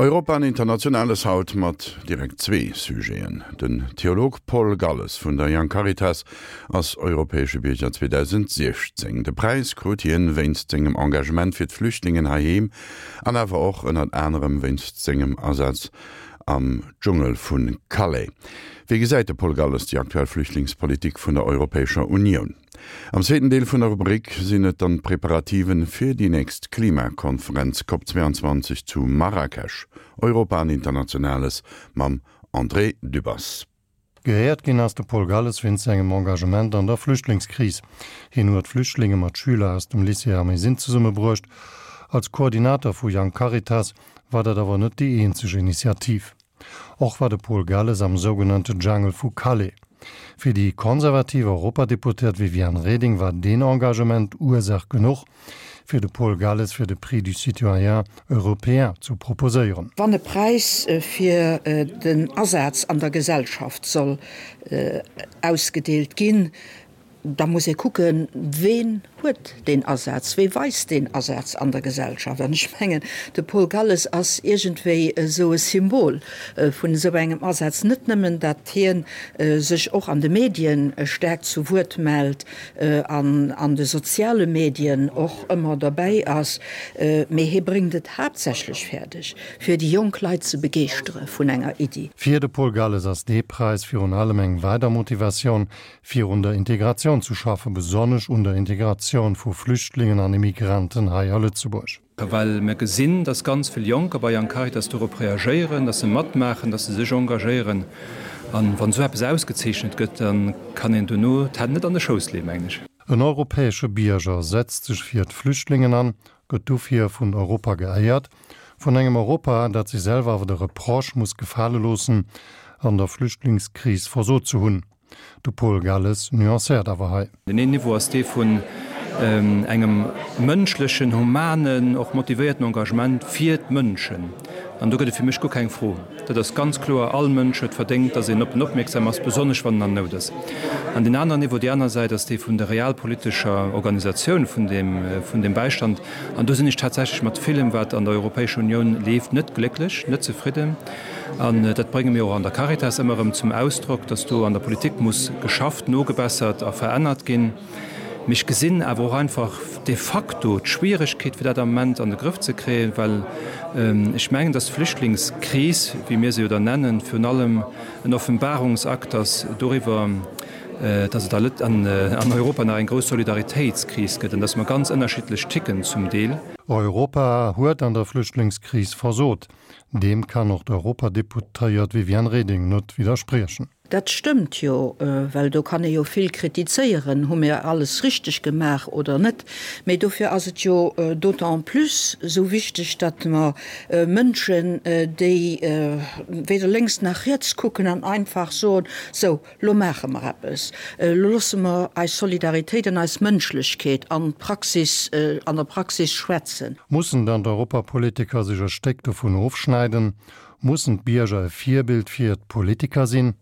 Europa an Internationales haut mat direkt zwee Sujeten. Den Theolog Paul Galles vun der Young Caritas ass europäesche Bierger 2016. De Präis krut hien wéinst sengem Engagement fir d'Flüchtlingen heiheem an awer och ënnert anerem wéinst sengem Asaz am Dschungel vu Calais. Wéi gesäit de Paul Galles déi aktuell Flüchtlingspolitik vun der Europäescher Unioun? Am zweeten Deel vun der Rubrik sinn et dann d'Preparativen fir déi nächst Klimakonferenz Cop 22 zu Marrakesch, Europa an Internationales mam André Dübbers. Geéiert ginn ass de Paul Galles wéinst sengem Engagement an der Flüchtlingskris. Hien huet Flüchtlinge mat Schüler aus dem Lycée Ermesinde zesummebruecht. Als Koordinator vu Young Caritas war dat awer net déi eenzeg Initiativ. Och war de Paul Galles am sougenannte Jungle vu Calais. Fir déi konservativ Europadeputéiert Viviane Reding war deen Engagement Ursaach genuch, fir de Paul Galles fir de Prix du citoyen européen zu proposéieren. Wann e Präis fir den Asaz an der Gesellschaft soll ausgedeelt ginn, da muss ee kucken, Ween huet deen Asaz, wee weist deen Asaz an der Gesellschaft? An ech mengen, de Paul Galles ass iergendwéi esou e Symbol vun esou engem Asaz. Net nëmmen, datt hie sech och an de Medien staark zu Wuert mellt an an de soziale Medien och ëmmer derbäi ass, mee hie bréngt et haaptsächlech fäerdeg, fir déi jonk Leit ze begeeschtere vun enger Iddi. Fir de Paul Galles ass dee Präis virun allem eng weider Motivatioun, fir un der Integratioun ze schaffen, besonnesch un der Integratioun vu Flüchtlingen an Immigranten hei a Lëtzebuerg. Well mir gesinn, dass ganz vill Jonker bei Young Caritas dorop reagéieren, dass se matmaachen, dass se sech engagéieren. A wann esou eppes ausgezeechnet gëtt, da kann een dono d'Hänn net an de Schouss leeën, mengen ech. En europäesche Bierger setzt sech fir d'Flüchtlingen an, gëtt dofir vun Europa geéiert. Vun engem Europa, dat sech selwer awer de Reproche muss gefale loossen, an der Flüchtlingskris versot ze hunn. De Paul Galles nuancéiert awer hei. Deen een Niveau ass dee vun engem mënschlechen, humanen, och motivéierten Engagement fir d'Mënschen. An do gëtt et fir mech guer keng Fro. Dat ass ganz kloer, all Mënsch huet verdéngt, datt een op en opmierksam ass, besonnesch wann en an Nout ass. An deen aneren Niveau, déi aner Säit, ass dee vun der realpolitescher Organisatioun vun deem, vun deem Bäistand. An do sinn ech tatsächlech mat villem, wat an der Europäescher Unioun leeft, net glécklech, net zefridden. An dat brénge mir och an der Caritas ëmmer erëm zum Ausdrock, dass do an der Politik muss geschafft, nogebessert a verännert ginn. Mee ech gesinn awer och einfach de facto d'Schwieregkeet, fir dat am Moment an de Grëff ze kréien, well ech mengen, dass d'Flüchtlingskris, wéi mir se jo da nennen, virun allem en Offenbarungsakt ass doriwwer, dass et an Europa nach eng grouss Solidaritéitskris gëtt an dass mer ganz ënnerschiddlech ticken zum Deel. Europa huet an der Flüchtlingskris versot. Deem kann och d'Europadeputéiert Viviane Reding net widderspriechen. Dat stëmmt jo, well do kann ee jo vill kritizéieren, hu mir alles richteg gemaach oder net. Mee dofir ass et jo d'autant plus esou wichteg, datt mer Mënschen, déi weder lénks nach riets kucken an einfach soen, sou, Lo maache mer eppes, lo loosse mer eis Solidaritéit an eis Mënschlechkeet an d'Praxis, an der Praxis schwätzen. Mussen dann d'Europapolitiker sech e Stéck dovun ofschneiden? Mussen d'Bierger e Virbild fir d'Politiker sinn?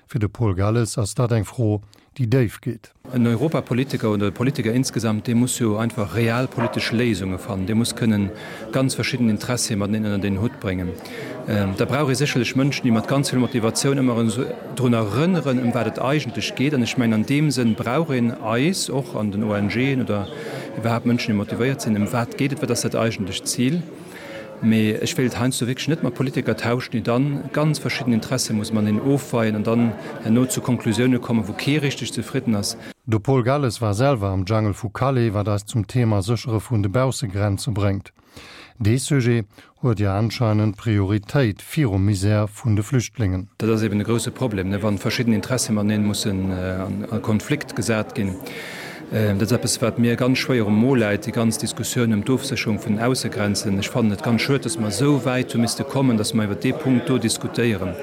Fir de Paul Galles ass dat eng Fro, déi déif geet. En Europapolitiker oder e Politiker insgesamt, dee muss jo einfach realpolitesch Léisunge fannen, dee muss kënnen ganz verschidden Interessie mateneen ënnert een Hutt bréngen. Da brauch ee sécherlech Mënschen, déi mat ganz vill Motivatioun ëmmer erëm drun erënneren, ëm wat et eigentlech geet. An ech mengen, an deem Sënn brauch een eis och an den ONGen oder iwwerhaapt Mënschen, déi motivéiert sinn, ëm wat geet et, wat ass dat eigentlecht Zil. Mee ech wéilt heiansdo wierklech net mat Politiker tauschen, déi dann ganz verschidden Interesse musse mateneen ofweien an dann herno zu Konklusioune kommen, wou kee richteg zefridden ass. De Paul Galles war selwer am Jungle vu Calais, wat eis zum Thema Séchere vun de Baussegrenze bréngt. Dee Sujet huet jo anscheinend Prioritéit virum Misär vun de Flüchtlingen. Dat ass eben e grousse Problem, wa verschidden Interessie mateneen mussen a Konflikt gesat ginn. Dat ass eppes, wat mir ganz schwéier um Mo läit, déi ganz Diskussioun ëm d'Ofsécherung vun den Aussegrenzen. Ech fannen et ganz schued, dass mer esou wäit hu misste kommen, dass mer iwwert dee Punkt do diskutéieren.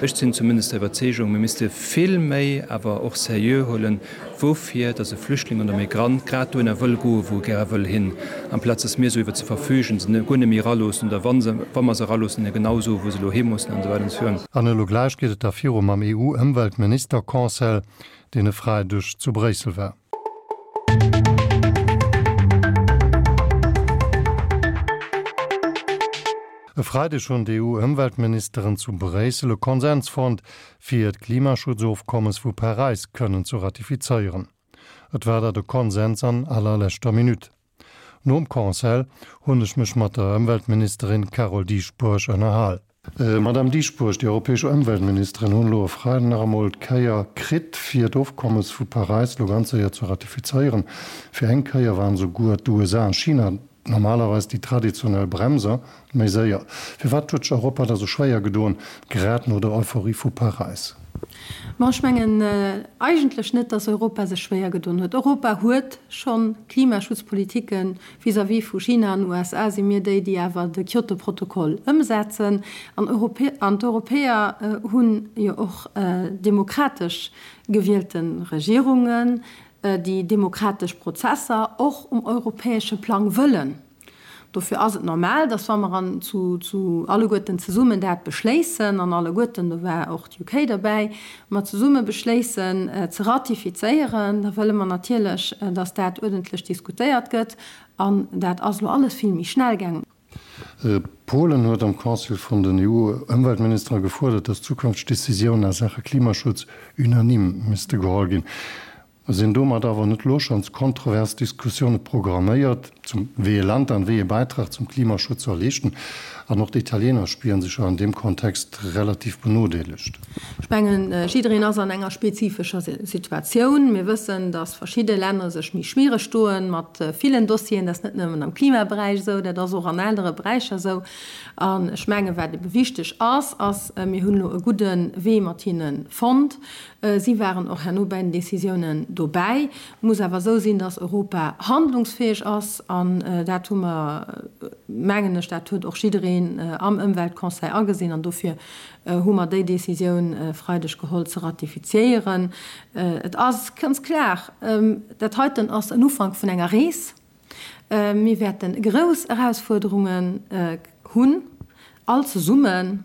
Ech sinn zumindest der Iwwerzeegung, mir misste vill méi awer och seriö huelen, woufir dass e Flüchtling oder Migrant grad dohinner wëll goen, wou e gäre wëll hin, amplaz dass mir esou iwwer se verfügen, se guer net méi eraloossen oder wa se, wa mer se eraloossen, hinne genau soen, wou se elo hi mussen an esou weider an esou virun. An elo gläich geet et da viru mam EU-Ëmweltministerconseil, deen e Freideg zu Bréissel war. E Freideg hunn d'EU-Ëmweltministeren zu Bréissel e Konsens fonnt, fir d'Klimaschutzofkommes vu Paräis kënnen ze ratifizéieren. Et war dat e Konsens an allerleschter Minutt. Nom Conseil hunn ech mech mat der Ëmweltministerin Carole Dieschbourg ënnerhal. Madame Dieschbourg, déi europäesch Ëmweltministeren hunn elo e Freiden nach emol d'Kéier kritt, fir d'Ofkommes vu Paräis elo ganz séier ze ratifizéieren. Fir eng Kéier waren esouguer d'USA an China Normalerweis déi traditionell Bremser méi séier. Firwat huet sech Europa da sou schwéier gedoen, grad no der Euphorie vu Paräis? Bon, ech mengen eigentlech net, datt Europa sech schwéier gedoen huet. Europa huet scho Klimaschutzpolitiken. Vis-à-vis vu China an USA si mir déi, déi awer de Kyoto-Protokoll ëmsetzen. An d'Europäer hunn jo och demokratesch gewielte Regierungen. déi demokratesch Prozesser och um europäesche Plang wëllen. Dofir ass et normal, dass wa mer an zu zu alleguerten zesummen dat beschléissen, an alleguerten, do war och d'UK derbäi, mer zesumme beschléissen ze ratifizéieren, da wëlle mer natierlech, dass dat uerdentlech diskutéiert gëtt. An dat ass elo alles vill méi schnell gaangen. Polen huet am Conseil vun den EU-Ëmweltministere gefuerdert, datt zukünfteg Decisiounen a Saache Klimaschutz unanime misste geholl ginn. Sinn domat awer net elo schonns kontrovers Diskussioune programméiert, zum wéi ee Land dann wéi ee Bäitrag zum Klimaschutz soll leeschten? An och d'Italiener spieren sech jo an deem Kontext relativ benodeelegt. Ech mengen, jiddereen ass an enger spezifescher Situatioun. Mir wëssen, datt verschidde Länner sech méi schwiereg doen mat villen Dossieren. Dat ass net nëmmen am Klimaberäich esou, dat ass och an anere Beräicher esou. An ech mengen, wat ebe wichteg ass, ass, mir hunn elo e gudde Wee mat hinne fonnt. Si waren och herno bäi den Décisiounen dobäi. Et muss awer esou sinn, datt Europa handlungsfäeg ass. An dat hu mer, mengen ech, dat huet och jiddereen am Ëmweltconseil agesinn. An dofir hu mer déi Décisioun e Freideg geholl ze ratifiziéieren. Et ass ganz klar, dat heiten ass en Ufank vun enger Rees. Mir wäerte grouss Erausfuerderungen hunn, all zesummen.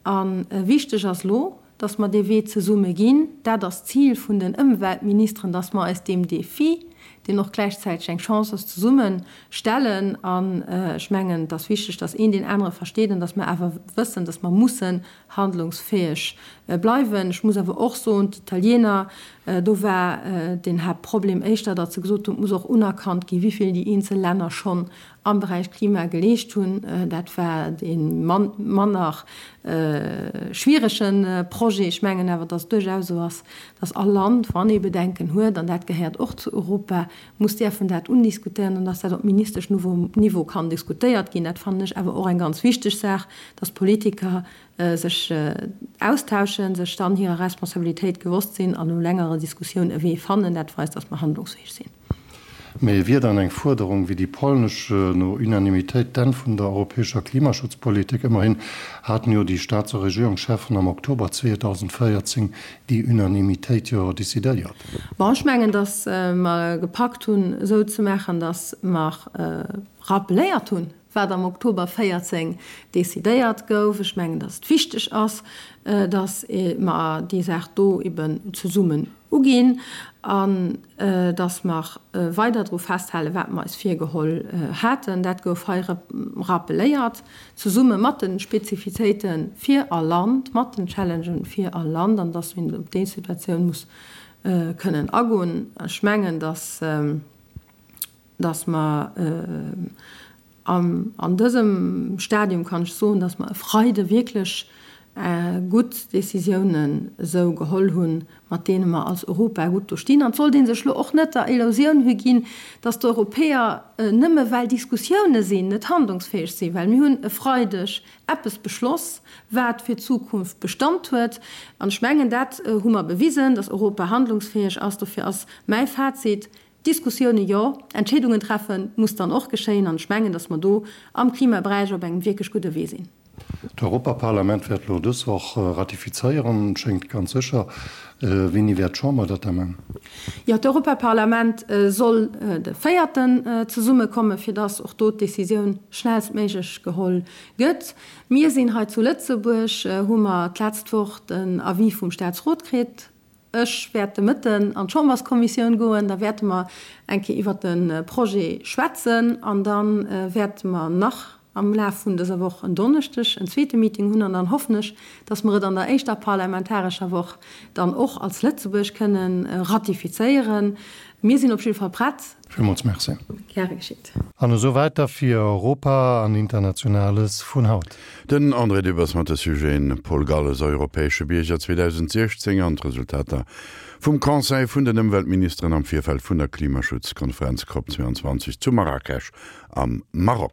A wichteg ass elo, dass mer dee Wee zesumme ginn. Dat ass d'Zil vun den Ëmweltministeren, dass mer eis deem Défi, deen och gläichzäiteg eng Chance ass, zesumme stellen. An ech mengen, et ass wichteg, dass een deen anere versteet an dass mer awer wëssen, dass mer mussen handlungsfäeg bleiwen. Ech muss awer och soen, d'Italiener, do war den Haaptproblem éischter, datt se gesot hunn, et muss och unerkannt ginn, wéi vill déi eenzel Länner schonn am Beräich Klima geleescht hunn. Dat war dee manner schwierege Projet. Ech mengen awer, datt et duerchaus esou ass, datt all Land, wann ee Bedenken huet, an dat gehéiert och zu Europa, muss däerfen dat undiskutéieren an datt dat op Ministeschniveau kann diskutéiert ginn. Dat fannen ech awer och eng ganz wichteg Saach, datt d'Politiker sech austauschen, sech dann hirer Responsabilitéit gewosst sinn an no längerer Diskussioun e Wee fannen. Dat weist, datt mer handlungsfäeg sinn. Mee wier dann eng Fuerderung wéi déi polnesch no Unanimitéit d'Enn vun der europäescher Klimaschutzpolitik? Ëmmerhin haten jo déi Staats a Regierungscheffen am Oktober 2014 déi Unanimitéit jo decidéiert. Bon, ech mengen, datt mer gepackt hunn, esou ze maachen, datt mer rappeléiert hunn, wat am Oktober 14 decidéiert gouf. Ech mengen, datt et wichteg ass, datt mer déi Saach do eben zesummen uginn an datt mer weider dru festhalen, wat mer eis virgeholl haten. Dat gouf hei rappeléiert, zesumme mat de Spezifitéite fir all Land, mat den Challengen fir all Land, an datt een op déi Situatioun muss kënnen agoen. Ech mengen, datt. Dass mer an dësem Stadium, kann ech soen, dass mer e Freide wierklech gutt Décisiounen esou geholl hunn, mat deene mer als Europa gutt do stinn. An et sollt ee sech elo och net der Illusioun higinn, dass d'Europäer nëmme well Diskussioune sinn, net handlungsfäeg sinn, well mir hunn e Freideg eppes beschloss, wat fir d'Zukunft Bestand huet. An ech mengen, dat hu mer bewisen, dass Europa handlungsfäeg ass. Dofir ass mäi Fazit, Diskussioune jo, Entscheedungen treffe muss dann och geschéien an ech mengen, datt mer do am Klimaberäich op engem wierklech gudde Wee sinn. D'Europaparlament wäert elo dës Woch ratifizéieren, schéngt ganz sécher. Wéini wäert d'Chamber dat da man? Jo, d'Europaparlament soll de véierten zesummekommen, fir datt och do d'Decisioun schnellstméiglech geholl gëtt. Mir sinn hei zu Lëtzebuerg, hu mer d'letzt Woch den Avis vum Staatsrot kritt. Ech wäert de Mëtten an d'Chamberskommissioun goen, da wäerte mer eng Kéier iwwert de Projet schwätzen an da wäerte mer nach. am Laf vun dëser Woch en Donneschdeg en zweete Meeting hunn an dann hoffen ech, dass mer et an der éischter parlamentarescher Woch dann och als Lëtzebuerg kënnen ratifizéieren. Mir sinn op jidde Fall prett. Villmools Merci. Gäre geschitt. An esou wäit da fir Europa an Internationales vun haut. Den André Dübbers mat de Sujeten Paul Galles, Europäesche Bierger 2016 an d'Resultater vum Conseil vun den Ëmweltministeren am Virfeld vun der Klimaschutzkonferenz Cop 22 zu Marrakesch am Maroc.